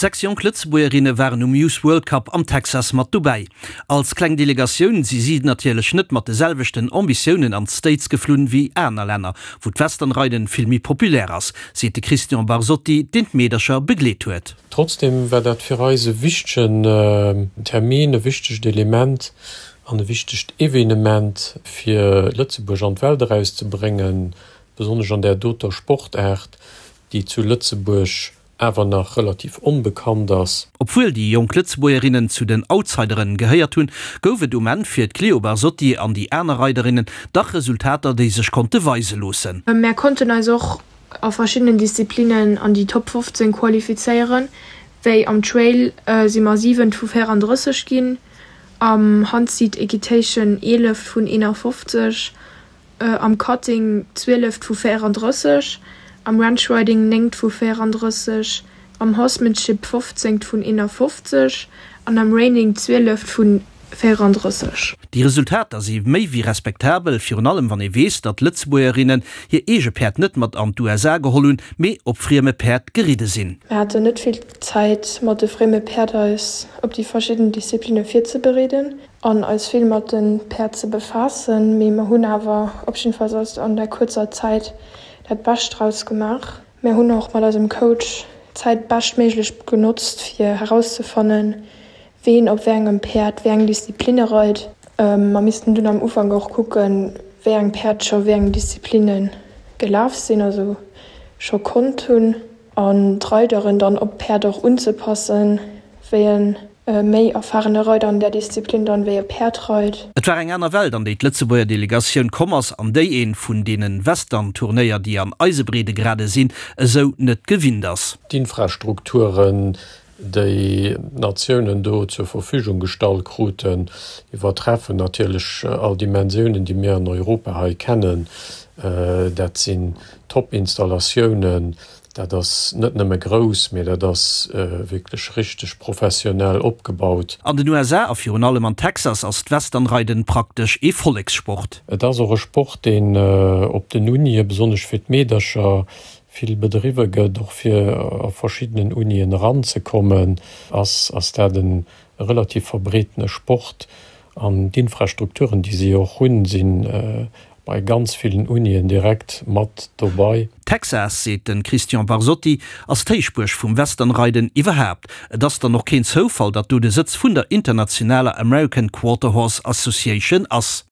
6 jonk Lëtzebuergerinne waren um Youth World Cup am Texas mat dobäi. Als kleng Delegatioun si si natierlech net mat de selwechten Ambitiounen an d'States geflunn wéi aner Länner, wou d'Westernreiden vill méi populär ass, seet de Christian Barsotti, deen d'Meedercher begleet huet. Trotzdem war dat fir eis e wichtegen Termin, e wichtegt Element an e wichtegt Evenement, fir Lëtzebuerg an d'Welt erauszebréngen, besonnesch an där doter Sportaart, déi zu Lëtzebuerg awer nach relativ onbekannt ass. Obwuel déi jonk Lëtzebuergerinnen zu den Outsideren gehéiert hunn, gouf et um Enn fir d'Cléo Barsotti an déi aner Reiderinnen dach Resultater, déi sech konnte weise loossen. Mär konnten eis och a verschiddenen Disziplinnen an déi Top 15 qualifizéieren, wéi am Trail si mer siwent vu 34 ginn, am Handseat Equitation eeleft vun 51, am Cutting zwieleft vu 34, am Ranch Riding néngt vu 34, am Horsemanship fofzéngt vun 51 an am Reining zwieleft vu 34. Déi Resultater si méi wéi respektabel, virun allem wann ee weess, datt d'Lëtzebuergerinnen hir eege Päerd net mat an d'USA geholl hunn, mee op frieme Päerd geridde sinn. Mir haten net vill Zäit mat de frieme Päerd eis op déi verschidden Disziplinne virzebereeden. an eis vill mat de Päerd ze befaassen, mee mer hunn awer op jiddefalls aus an där kuerzer Zäit dat Bescht draus gemaach. Mär hunn och mat eisem Coach d'Zäit beschtméiglech genotzt fir herauszefannen, ween op wéi engem Päerd wéi eng Disziplinne reit. Mer missten dunn am Ufank och kucken, wéi eng Päerd scho wéi eng Disziplinne gelaf sinn, also scho konnt hunn. An d'Reideren dann op d'Päerd och unzepassen, wéi e méi erfahrene Reider an där Disziplin dann wéi e Päerd reit. Et war eng aner Welt, an déi d'Lëtzebuerger Delegatioun komm ass, an déi een vun deene Western-Turnéier, déi an eise Breedegrade sinn, esou net gewinnt ass. D'Infrastrukturen, déi d'Natiounen do zur Verfügung gestallt kruten, iwwertreffen natierlech all Dimensiounen, déi mir an Europa hei kennen. Dat sinn Top-Installatiounen, dat ass net nëmme grouss, mee dat ass wierklech richteg professionell opgebaut. An den USA a virun allem an Texas ass d'Westernreiden praktesch ee Vollekssport. Et ass och e Sport, deen op den Unie, besonnesch fir d'Meedercher, vill bedriwwe gëtt, och fir a verschiddenen Unien eranzekommen, ass ass dat e relativ verbreetene Sport. An d'Infrastrukturen, déi si och hunn, si bei ganz villen Unien direkt mat dobei. Texas, seet de Christian Barsotti, ass d'Héichbuerg vum Westernreiden iwwerhaapt. Et ass dann och keen Zoufall, datt do de Sëtz vun der internationaler American Quarter Horse Association ass.